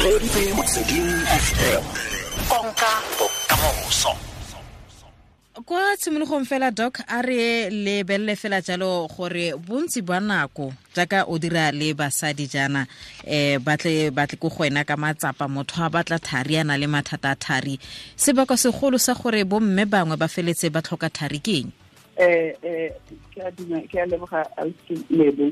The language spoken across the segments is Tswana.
Reditse Motsweding FM. Konka bokamoso. Kwa tshimologong fela, Doc, a re lebelele fela jalo gore bontsi ba nako jaaka o dira le basadi jaana, batle ko go wena ka matsapa, motho a batla thari, a na le mathata a thari, sebaka segolo sa gore bomme bangwe ba feletse ba tlhoka thari ke eng? Ke a leboga, ausi Lebo.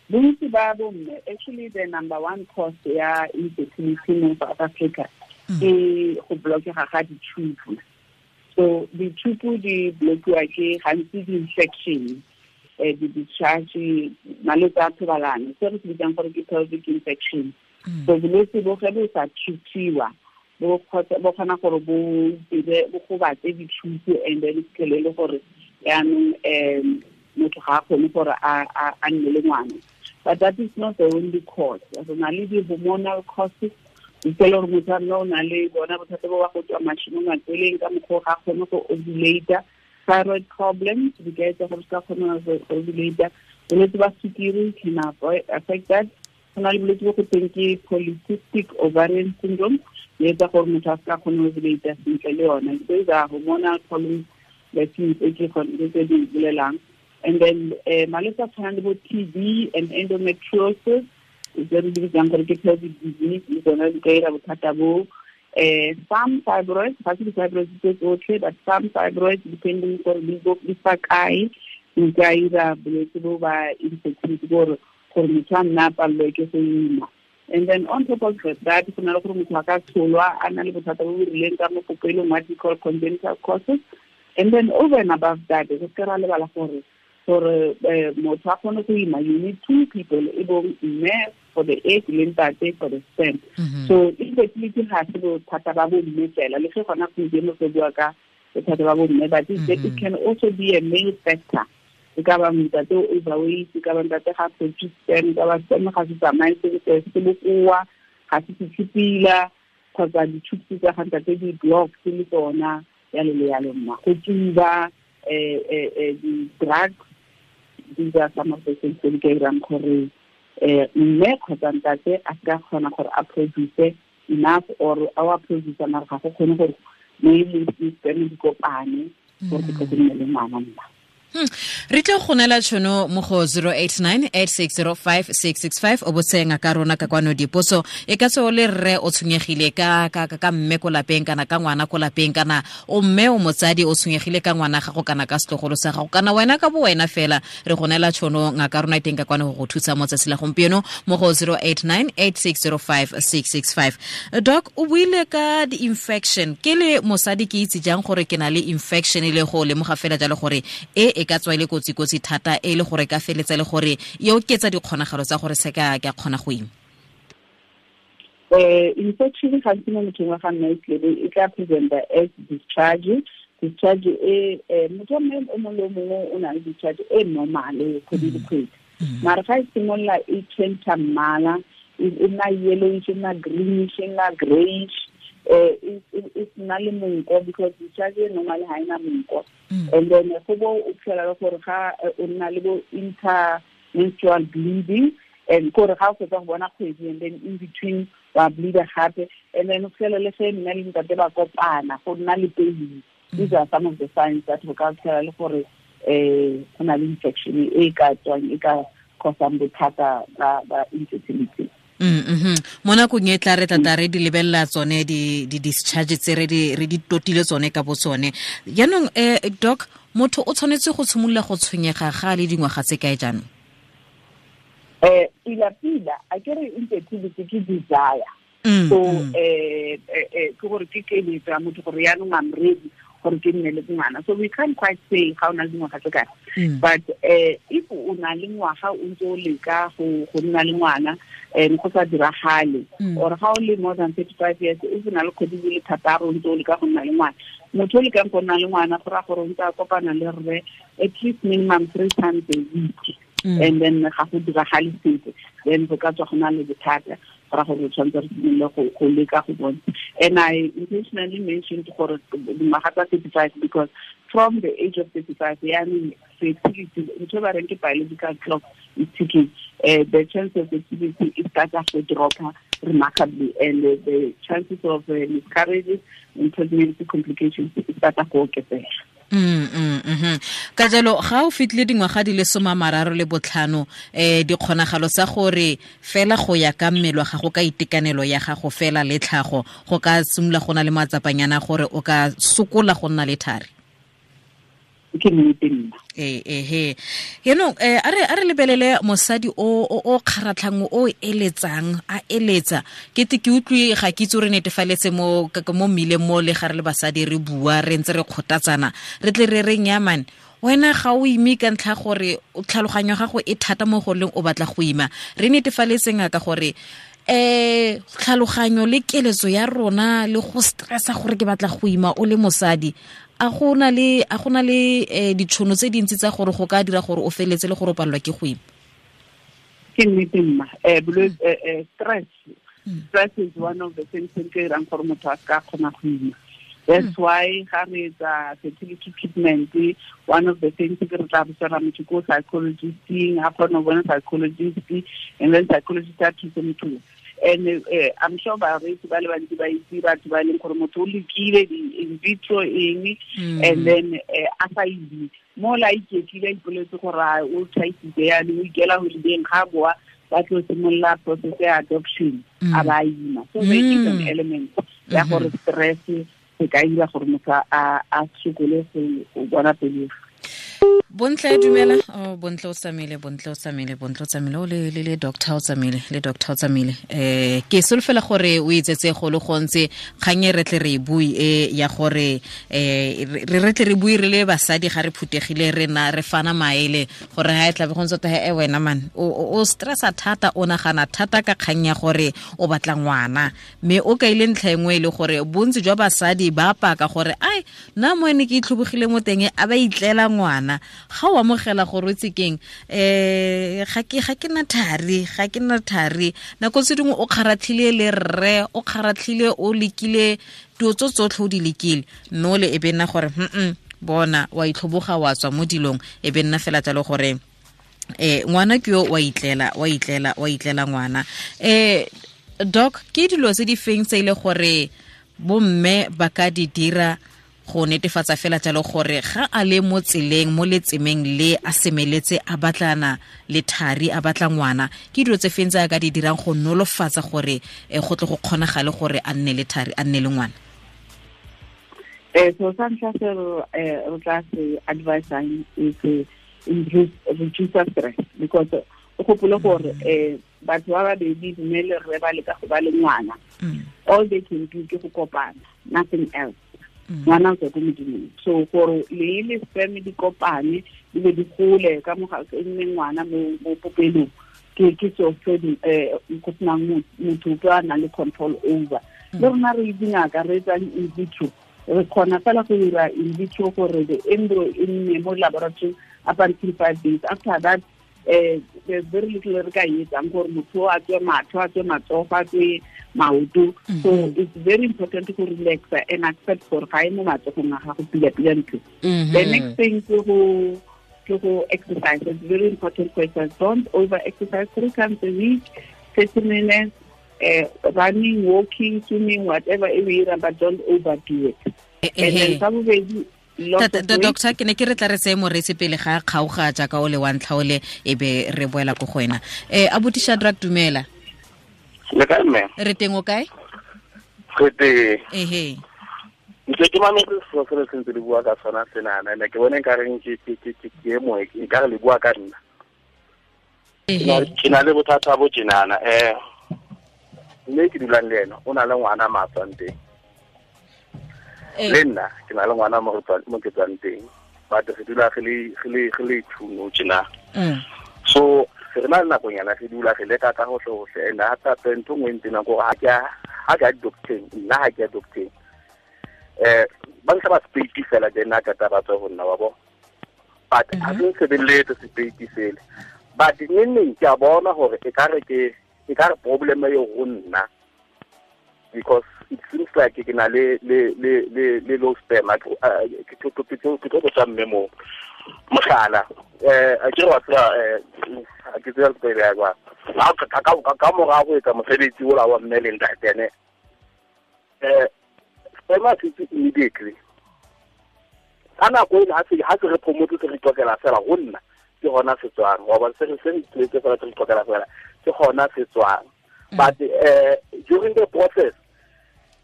Bontsi ba bomme, actually the number one cause ya infertility mo South Africa ke go blockega ga ditube. So ditube di blockiwa ke gantsi di-infection, di-discharge, malwetse a thobalano, se re se bitsang gore ke pelvic infection. So bolwetse bo ge bo sa treatiwa, bo kgona gore bo dire, bo gobatse ditube, and then fitlhele le gore yaanong motho ga a kgone gore a nne le ngwana. But that is not the only cause. Re na le di-hormonal causes, fitlhele gore motho a nna o na le bona bothata bo ba go tswa mashi mo matsweleng ka mokgwa o ga a kgone go ovulate. Thyroid problems di ka etsa gore se ka kgona go ovulate. Bolwetse ba sukiri can affect that. Go na le bolwetse bo go teng ke polycystic ovarian syndrome, e etsa gore motho a se ka kgone go ovulate sentle le yona. Those are hormonal problems that tse ke tse di bolelang. And then malwetse a tshwanang le bo TB and endometriosis, tse re di bitsang gore ke pelvic disease, le tsona di ka ira bothata bo. Some fibroids, ga se di-fibroids tse tsotlhe, but some fibroids, depending gore di fa kae, di ka ira bolwetse bo ba infertility, gore motho a nna a palelwe ke go ima. And then on top of that, go na le gore motho a ka tsholwa a na le bothata bo bo rileng ka mo popelong, what we call congenital causes. And then over and above that, re se ra lebala gore motho a kgone go ima, you need two people, e bong mme for the egg le ntate for the sperm. So infertility ga se bothata ba bomme fela, le ge gona gompieno re bua ka bothata ba bomme, but it can also be a male factor. E ka ba ntate o overweight, e ka ba ntate ga produce sperm, e ka ba sperm ga se tsamaye sentle, se bokoa, ga se fitlhe pila, kgotsa di-tubes tsa ga ntate di block le tsona, yalo le yalo mma. Go tsuba, di-drugs, these are some of the things tse di ka irang gore mme kgotsa ntate a se ka kgona gore a produce enough, or a wa produce mara ga go kgone gore mme le sperm di kopane gore go tle go nne le ngwana mma. Re tle go neela tšhono mo go 089 860 5665, o botse ngaka rona ka kwano dipotso. E ka tswa o le rre, o tshwenyegile ka mme ko lapeng, kana ka ngwana ko lapeng, kana o mme o motsadi, o tshwenyegile ka ngwana gago kana ka setlogolo sa gago, kana wena ka bo wena fela, re go neela tšhono, ngaka rona e teng ka kwano go go thusa mo tsatsi la gompieno mo go 089 860 5665. Doc, o buile ka di-infection. Ke le mosadi, ke itse jang gore ke na le infection, e le go lemoga fela jalo gore e ka tswa e le kotsi-kotsi thata, e le gore ka feletsa le gore e oketsa dikgonagalo tsa gore se ka ke a kgona go ima? Infection gantsi mo mothong wa ga nna e e tla presenta as discharge. Discharge e motho wa mme o mongwe le o mongwe o na le discharge e normal kgwedi le kgwedi, mara ga e simolola e change mmala, e nna yellowish, e nna greenish, e nna greyish, e nna le monko, because discharge e normal ga ena monko. And then go bo o fitlhela le gore ga o nna le bo intermenstrual bleeding, and kore ga o fetsa go bona kgwedi, and then in between wa bleeda gape, and then o fitlhela le ge mme le ntate ba kopana go nna le pain. These are some of the signs that go ka fitlhela le gore go na le infection e ka tswang, e ka causang bothata ba infertility. Mo nakong e tla re tla re di lebelela tsone di discharge tse re di totile tsone ka bo tsone. Jaanong, Doc, motho o tshwanetse go tshimolola go tshwenyega ga le dingwaga tse kae jaanong? Pila pila, a ke re infertility ke desire. So ke gore ke keletso ya motho gore yaanong I'm ready gore ke nne le ngwana. So we can't quite say ga o na le dingwaga tse kae. But if o na le ngwaga o ntse o leka go nna le ngwana and go sa diragale, or ga o le more than 35 years, if o na le kgwedi di le 6 o ntse o leka go nna le ngwana, motho o lekang go nna le ngwana go raya gore o ntse a kopana le rre at least minimum three times a week, and then ga go diragale sentle, then go ka tswa go na le bothata, go raya gore re tshwanetse re simolole go leka go bona. And I intentionally mentioned gore dingwaga tsa 35, because from the age of 35 yaanong fertility, ntho e ba reng ke biological clock is ticking, the chance of fertility e starta go dropa. remarkably, and the chances of miscarriages and pregnancy complications start go oketsega. Ka jalo ga o fitlile dingwaga di le 35 dikgonagalo tsa gore fela go ya ka mmele wa gago ka itekanelo ya gago fela le tlhago go ka simolola go na le matsapanyana gore o ka sokola go nna le thari. Ke nnete nna. Yaanong a re lebelele mosadi o kgaratlhang o eletsang a eletsa ke te ke utlwe ga ke itse re netefaletse mo mmileng mo le ga re le basadi re bua re ntse re kgothatsana re tle re reng ya man wena ga o ime ka ntlha gore tlhaloganyo gago e thata mo go leng o batla go ima. Re netefaletseng ka gore tlhaloganyo le keletso ya rona le go stressa gore ke batla go ima o le mosadi a go na le ditšhono tse dintsi tsa gore go ka dira gore o feletse le gore o palelwa ke go ima. Ke nnete mma. Stress is one of the things tse di dirang gore motho a ka kgona go ima. That's why ga re etsa fertility treatment, one of the things ke re tla botsa motho ko psychologisting, a kgone go bona psychologist, and then psychologist a thuse motho. And I'm sure bareetsi ba le bantsi ba itse batho ba e leng gore motho o lekile di-in vitro eng, and then a sa ime mo la iketlile a ipoletse gore o thaisitse yanong o ikela holidayng ga boa ba tlo simolola process ya adoption a ba ima. So there is an element ya gore stress se ka dira gore motho a sokole go bona pelegi. Bontle dumela. Oh, Bontle o tsamaile o le doctor o tsamaile le doctor o tsamaile. Ke solofela gore o itsetse go le gontsi kgang e re tle re bui e ya gore re tle re bui re le basadi ga re phutegile re na re fana maele gore ha e tla be go ntse he wena man o stressa thata o nagana thata ka kgang ya gore o batla ngwana mme o kaile ntlha engwe le gore bontsi jwa basadi ba paka gore ai nna mo ene ke itlhobogile mo teng a ba itlela ngwana. Ga o amogela gore o itse keng ga ke na thari nako tse dingwe o kgaratlhile le rre o kgaratlhile o lekile dilo tso tsotlhe o di lekile mme o le e be nna gore bona wa itlhoboga wa tswa mo dilong e be nna fela jalo gore ngwana ke yo wa itlela ngwana. Doc, ke dilo tse di feng tse ile gore bomme ba ka di dira go netefatsa fela jalo gore ga a le mo tseleng mo letsemeng le a semeletse a batlana le thari a batla ngwana, ke dilo tse feng tse a ka di dirang go nolofatsa gore go tle go kgonagale gore a nne le thari a nne le ngwana? So sa ntlha se re tla se advisang is reduce stress, because o gopole gore batho ba babedi mme le rre ba leka go ba le ngwana, all they can do ke go kopana, nothing else. Ngwana o tswa ko modimong, so gore le le sperm di kopane di be di gole ka moga e nne ngwana mo popelong ke so se go senang motho ope a nang le control over. Le rona re dingaka re etsang in vitro, re kgona fela go dira in vitro gore the embryo e nne mo laboratory up until 5 days. After that there's very little re ka e etsang gore motho a tswe matlho a tswe matsogo a tswe maoto. So it's very important to relax and accept gore ga e mo matsogong a gago pila-pila ntho. The next thing ke go exercise. It's very important for exercise. Don't over exercise. 3 times a week, 30 minutes, running, walking, swimming, whatever e o but don't overdo it. And then sa bobedi, Doctor, ke ne ke re tla re tseye moreetsi pele ga kgaoga jaaka o le wa ntlha o le e be re boela ko go wena. Abuti Shadrack, dumela. Le kae mme? Re teng o kae? Re teng. Ehe. Ntse ke mametse selo se le sentse le bua ka sona senana, ene ke bone nka reng ke e moe nka re le bua ka nna. Ke na le bothata bo tjenana mme ke dulang le ena o na le ngwana ma tswang teng. Le nna ke na le ngwana mo ke tswang teng, but re dula re le two tjena. So re na le nakonyana re dula re leka ka hohle and hape hape ntho nngwe ntsena gore ha ke a docteng nna ha ke a docteng ba ntlha ba sepeiti fela then a kata ba tswa ho nna wa bo, but ha se nsebeletse sepeiti sele, but neng ke a bona hore e ka re problem e ho nna, because it seems like ke na le low sperm ke tlo tsa mme mo. Mohlala, a ke wa tseba a ke tseba pele ya kwa. Ka mora go etsa mosebetsi ola wa mme le ntate ne. Sperma se immediately. Ka nako ena ha se re phomotse se re tlokela fela go nna ke gona se tswang. Wa bona se re tletse fela se re tlokela fela ke gona se tswang. But during the process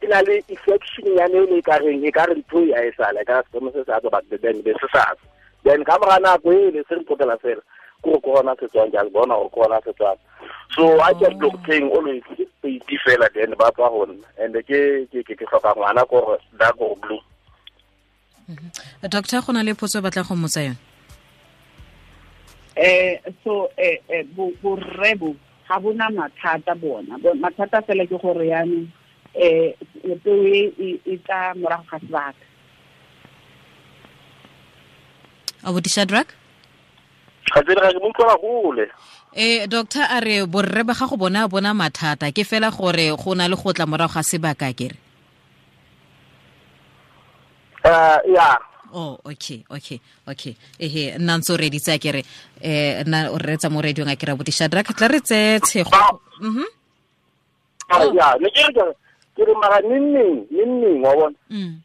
ke na le infection ya ne le ka reng e ka re ntho ya e sala ka sperma se sa tswa but then be se sa. Then ka mora nako e le se re tlokela fela ko gona se tswang jang bona o gona se tswang. So I just look thing always ke fela then ba tswa go nna and ke hloka ngwana ko dark or blue. Doctor, go na le potso batla go mmotsa yone. So borrebo ga bona mathata bona. Mathata fela ke gore yana peo e tla morago ga sebaka. Abuti Shadrack? Ga tsere ga mo utlwela gole. Doctor a re borre ba gago bona mathata ke fela gore go na le go tla morago ga sebaka kere. Yeah. Oh, okay. Ehe, nna ntse o reditse a kere nna o reetsa mo radiong a kere abuti Shadrack tla re tse tshego. Mhm. Ya, ne ke re mara neng wa bona. Neng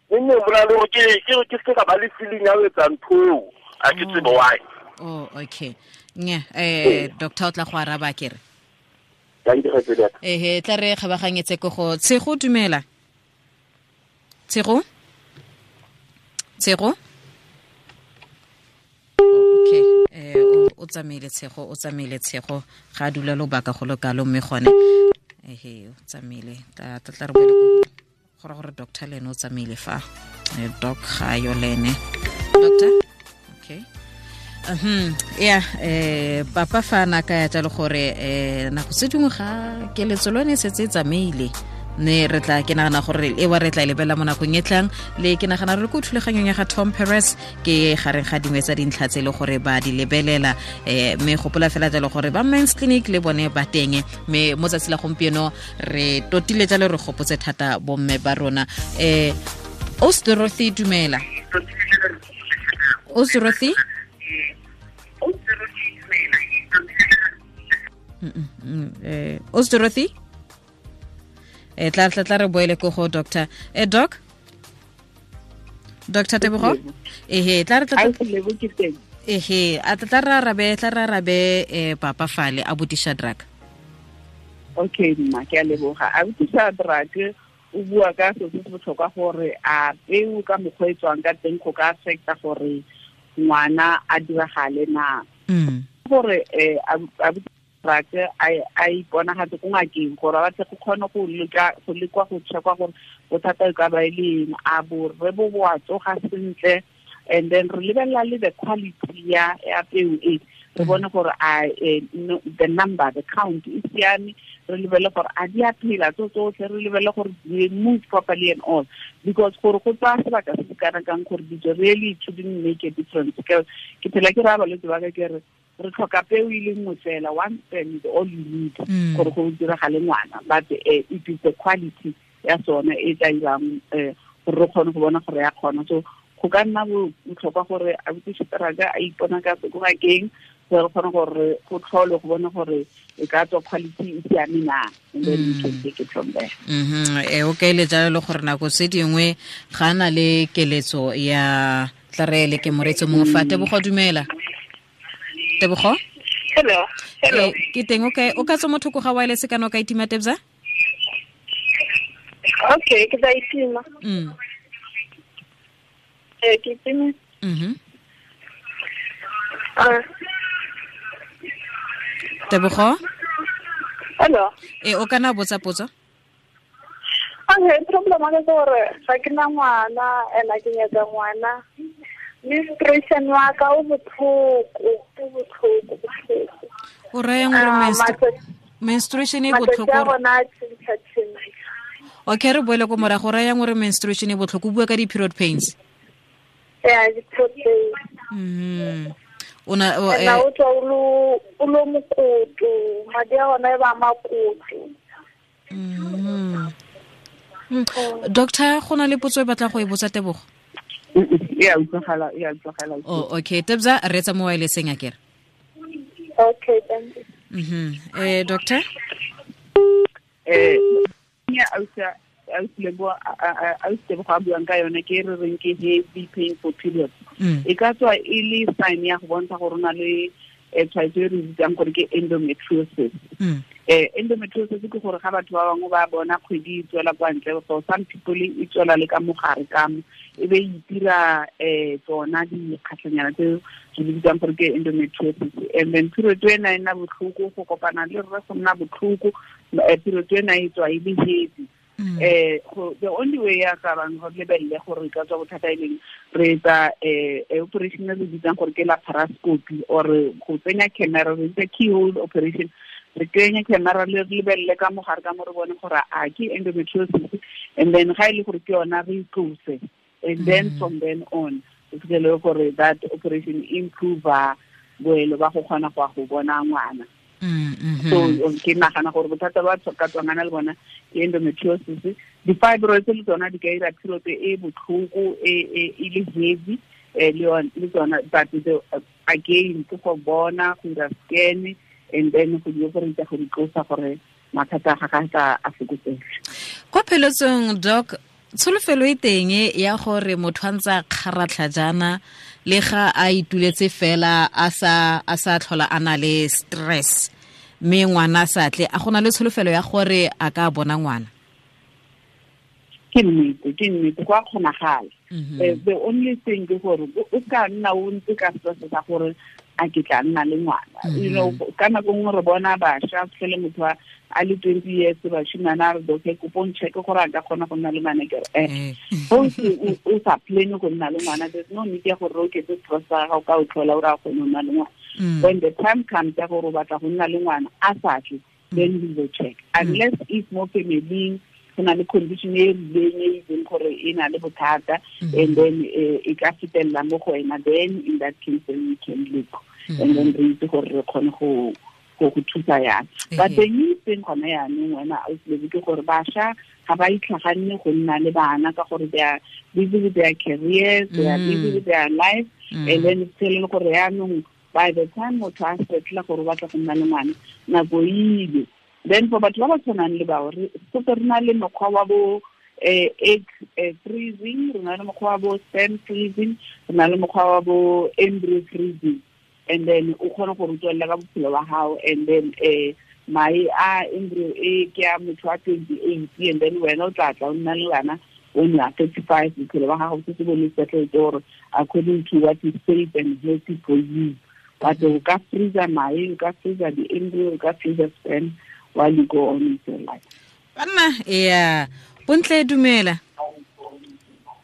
bona le ke se ka ba le feeling ya ho etsa ntho a ke tsebe why. Oh, okay. Nya, doctor o tla go araba kere. Thank you for that. Ehe, tla re kgabaganyetse ko go Tshego dumela. Tshego? Tshego? Okay, o tsamaile Tshego, ga dula lobaka go lokalo mme gone. Ehe, o tsamaile. Tla re boele ko gore doctor le ene o tsamaile fa. Doc ga yo le ene. Doctor? Okay. Yeah, papa fa na ka ya tla le gore nako tse dingwe ga keletso lone setse e tsamaile. Ne re tla ke nagana gore e wa re tla lebela mo nakong e tlang le ke nagana re ko thulaganyong ya ga Tom Perez ke gareng ga dingwe tsa dintlha tse le gore ba di lebelela mme gopola fela jalo gore ba Men's Clinic le bone ba teng mme mo tsatsi la gompieno re totile jalo re gopotse thata bomme ba rona. Os Dorothy dumela. Os Dorothy? Os Dorothy? Tla re boele ko go doctor. Doc? Doctor Tebogo? Ehe, tla re ehe, a tla re arabe papa fale abuti Shadrack. Okay, mma ke a leboga. Abuti Shadrack o bua ka se se botlhokwa gore a peo ka mokgwa e tswang ka teng go ka affecta gore ngwana a diragale na. Gore abuti Shadrack a iponagatse ko ngakeng gore ba tle go kgone go lekwa go checkwa gore bothata e ka ba e le eng, a borre bo bo a tsoga sentle, and then re lebelela le the quality ya peo e re bone gore a the number, the count e siame, re lebele gore a di a phela tso tsotlhe, re lebele gore they move properly and all, because gore go tsaya sebaka se se kana kang gore dijo really it shouldn't make a difference. Ke phela ke raya balwetse ba ka ke re re tlhoka peo e le nngwe fela, one sperm is all you need gore go diragale ngwana, but it is the quality ya sone e tla irang gore re kgone go bona gore ya kgona. So go ka nna botlhokwa gore abuti Shadrack a ipona ka ko ngakeng gore re kgone gore go tlhole go bona gore e ka tswa quality e siame na, and then we can take it from there. O kaile jalo le gore nako tse dingwe ga na le keletso ya tla re le ke moretso mongwe fa. Tebogo dumela. Tebogo? Hello. Hello. Ke teng o kae? O ka tswa mo thoko ga wireless kana o ka itima Tebza? Okay, ke tla itima. Ke itima. Tebogo? Hello. O kana botsa potso? Okay, problem ke gore ga ke na ngwana ena ke nyaka ngwana. Menstruation wa ka o botlhoko. O raya gore menstruation e botlhoko. Okay, re boele ko morago. O raya gore menstruation e botlhoko, o bua ka di-period pains. Yeah, di-period pains. Ona o tswa o lo mokoto, madi a ona e ba makoto. Doctor, go na le potso e batla go e botsa Tebogo? Ya utlwagala, ya utlwagala. Oh, okay. Tebza, re tsa mo wirelesseng akere. Okay, thank you. Doctor? Ya ausa Lebo a buang ka yone ke re reng ke heavy painful period. E ka tswa e le sign ya go bontsha gore o na le tshwaetso e re bitsang gore ke endometriosis. Endometriosis ke gore ga batho ba bangwe ba bona kgwedi e tswela kwa ntle, for some people e tswela le ka mogare ka mo, e be e itira tsona dikgatlhanyana tse re di bitsang gore ke endometriosis. And then period ena e nna botlhoko, go kopana le rre go nna botlhoko, period ena e tswa e le heavy. The only way ya ka bang go lebelle gore ka tswa bothata e leng re etsa operation e re bitsang gore ke laparoscopy, or go tsenya camera, re bitsa keyhole operation. Re kenya camera le re lebelle ka mogare ka mo, re bone gore a ke endometriosis, and then ga e le gore ke yona re itlose, and then from then on o fitlhele gore that operation improve boelo ba go kgona go ya go bona ngwana. So ke nagana gore bothata ba ka tswangana le bona ke endometriosis. Di-fibroids le tsona di ka ira period e botlhoko e le heavy, le tsona, but again ke go bona, go ira scan, and then go di operate go di tlosa gore mathata a gagwe a fokotsege. Kwa pheletsong, Doc, tsholofelo e teng ya gore motho a ntse a kgaratlha jaana le ga a ituletse fela a sa tlhola a na le stress, mme ngwana a sa tle, a gona le tsholofelo ya gore a ka bona ngwana? Ke nnete, go a kgonagala. The only thing ke gore o ka nna o ntse ka stress sa gore a ke tla nna le ngwana. You know, ka nako nngwe re bona bašwa, fitlhele motho a le 20 years, bashimane a re, "Okay, kopo ncheck gore a ka kgona go nna le ngwana." Ke re, o sa plan go nna le ngwana, there's no need ya gore o oketse stress sa gago ka o tlhola o re a kgone go nna le ngwana. When the time comes ya gore o batla go nna le ngwana a sa tle, then we will check. Unless if mo family go na le condition e rileng e itseng gore e na le bothata, and then e ka fetelela mo go wena, then in that case then we can look, and then re itse gore re kgone go thusa yang. But the new thing gone yaanong wena ausi ke gore bašwa ga ba itlhaganne go nna le bana ka gore they are busy with their careers, they are busy with their life, and then it's telling gore yaanong by the time motho a setla gore o batla go nna le ngwana, nako ile. Then for batho ba ba tshwanang le bao, re setse re na le mokgwa wa bo egg freezing, re na le mokgwa wa bo sperm freezing, re na le mokgwa wa bo embryo freezing, and then o kgone gore o tswelela ka bophelo ba gago. And then mae a embryo e ke a motho wa 28, and then wena o tla tla o nna le bana when you are 35, bophelo ba gago setse bo le settled gore according to what is safe and healthy for you. But o ka freezer mae, o ka freezer di-embryo, o ka freezer sperm while you go on with your life. Banna, yeah. Bontle, dumela.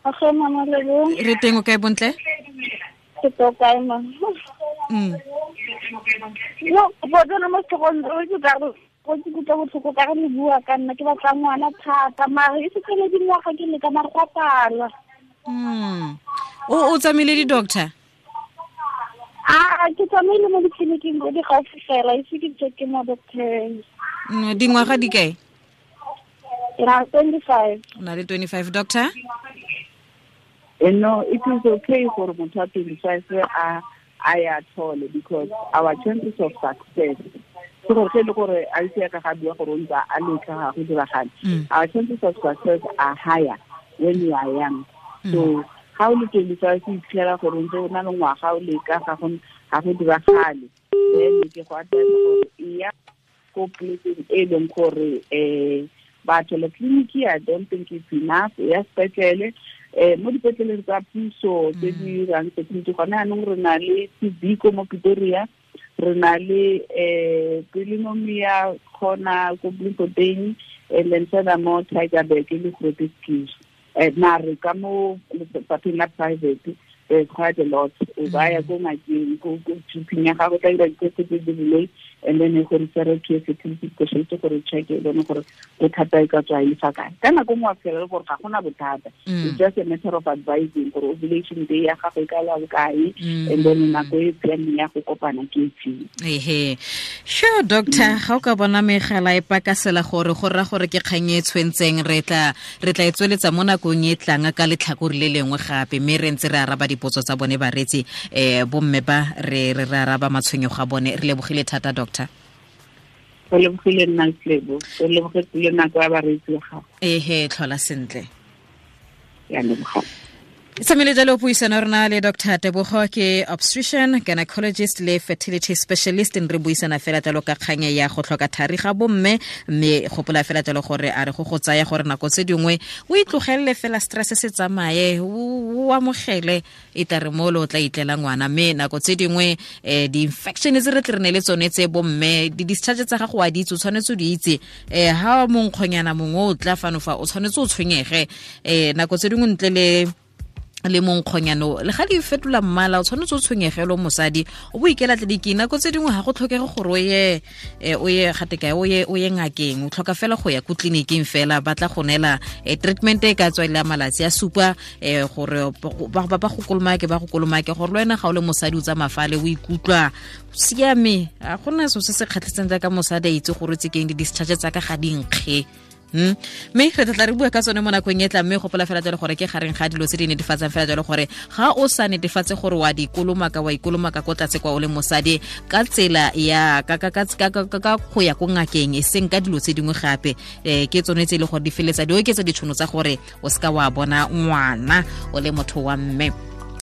Okay, mama Lebo. Re teng, o kae, Bontle? Ke to kae, ma? No, bo tsena mo setlhogong, o itse ka re go ke kutlwa botlhoko ka re le bua ka nna, ke batla ngwana thata, mare e se le dingwaga ke leka, mare go a pala. O tsamaile di-doctor? A ke tsamaile mo ditleliniking tse di gaufi fela, ise ke check mo doctor. Dingwaga di kae? Ke na le 25. O na le 25, doctor? No, it is okay for motho wa 25 a ya thole, because our chances of success, ke gore ge e le gore a itse ya ka ga bua gore o ntse a letla ga go diragale, our chances of success are higher when you are young. So ga o le 25, o iphitlhela gore o ntse o na le ngwaga o leka, ga go diragale, then ke go advise gore e ya ko polekeng e leng gore batho le tleliniki, I don't think it's enough. Ya sepetlele, mo dipetleleng tsa puso tse di dirang fertility gone yaanong, re na le Tibiko mo Pretoria, re na le Pelenomia kgona ko Bloemfontein, and then furthermore Tygerberg le Groote Schuur. Mare ka mo lefapheng la private There's quite a lot. O baya ko ngakeng, ko GP ya gago, tla dira di-test tse di rileng, and then e go refer to a fertility specialist gore check e bone gore bothata e ka tswa e fa kae. Ka nako nngwe wa fitlhela le gore ga gona bothata. It's just a matter of advising gore ovulation day ya gago e ka la bokae, and then nako e siameng ya go kopana ke efeng. Ehe, sure, doctor, ga o ka bona megala e pakasela gore go rra gore ke kgang e tshwentseng, re tla e tsweletsa mo nakong e tlang ka letlhakore le lengwe gape, mme re ntse re araba dipotso tsa bone bareetsi, bomme ba re re araba matshwenyego a bone. Re lebogile thata, doctor. Re lebogile nna, Lebo. Re lebogetse le nako ya bareetsi ba gago. Ehe, tlhola sentle. Ya leboga. Tsamile jalo puisano rona le Dr. Tebogo, ke obstetrician, gynecologist le fertility specialist. Re buisana fela jalo ka kgang ya go tlhoka thari ga bomme, mme gopola fela jalo gore a re go tsaya gore nako tse dingwe o itlogelele fela stress se tsamaye, o amogele e tla re mo lo tla itlela ngwana. Mme nako tse dingwe di-infection tse re tle re ne le tsone tse bomme, di-discharge tsa gago wa di itse, o tshwanetse o di itse. Ha monkgonyana mongwe o tla fano fa, o tshwanetse o tshwenyege. Nako tse dingwe ntle le monkgonyano le ga di fetola mmala, o tshwanetse o tshwenyegelo mosadi, o bo ikela tleliniking. Nako tse dingwe ga go tlhokege gore o ye gate kae, o ye ngakeng, o tlhoka fela go ya ko tleliniking fela, ba tla go neela treatment e ka tswa ile malatsi a supa, gore ba go kolomake, ba go kolomake, gore le wena ga o le mosadi o tsamaya fale o ikutlwa siame. A gona so se se kgatlhisang jaaka mosadi a itse gore tse keng di-discharge tsa ka ga di nkge. Mme re tla re bua ka tsone mo nakong e tla. Mme gopola fela jalo gore ke gareng ga dilo tse di netefatsang fela jalo gore ga o sa netefatse gore wa di kolomaka, wa ikolomaka ko tlatse kwa o le mosadi ka tsela ya ka go ya ko ngakeng, e seng ka dilo tse dingwe gape. Ke tsone tse e le gore di feletsa di oketsa ditšhono tsa gore o seka wa bona ngwana o le motho wa mme.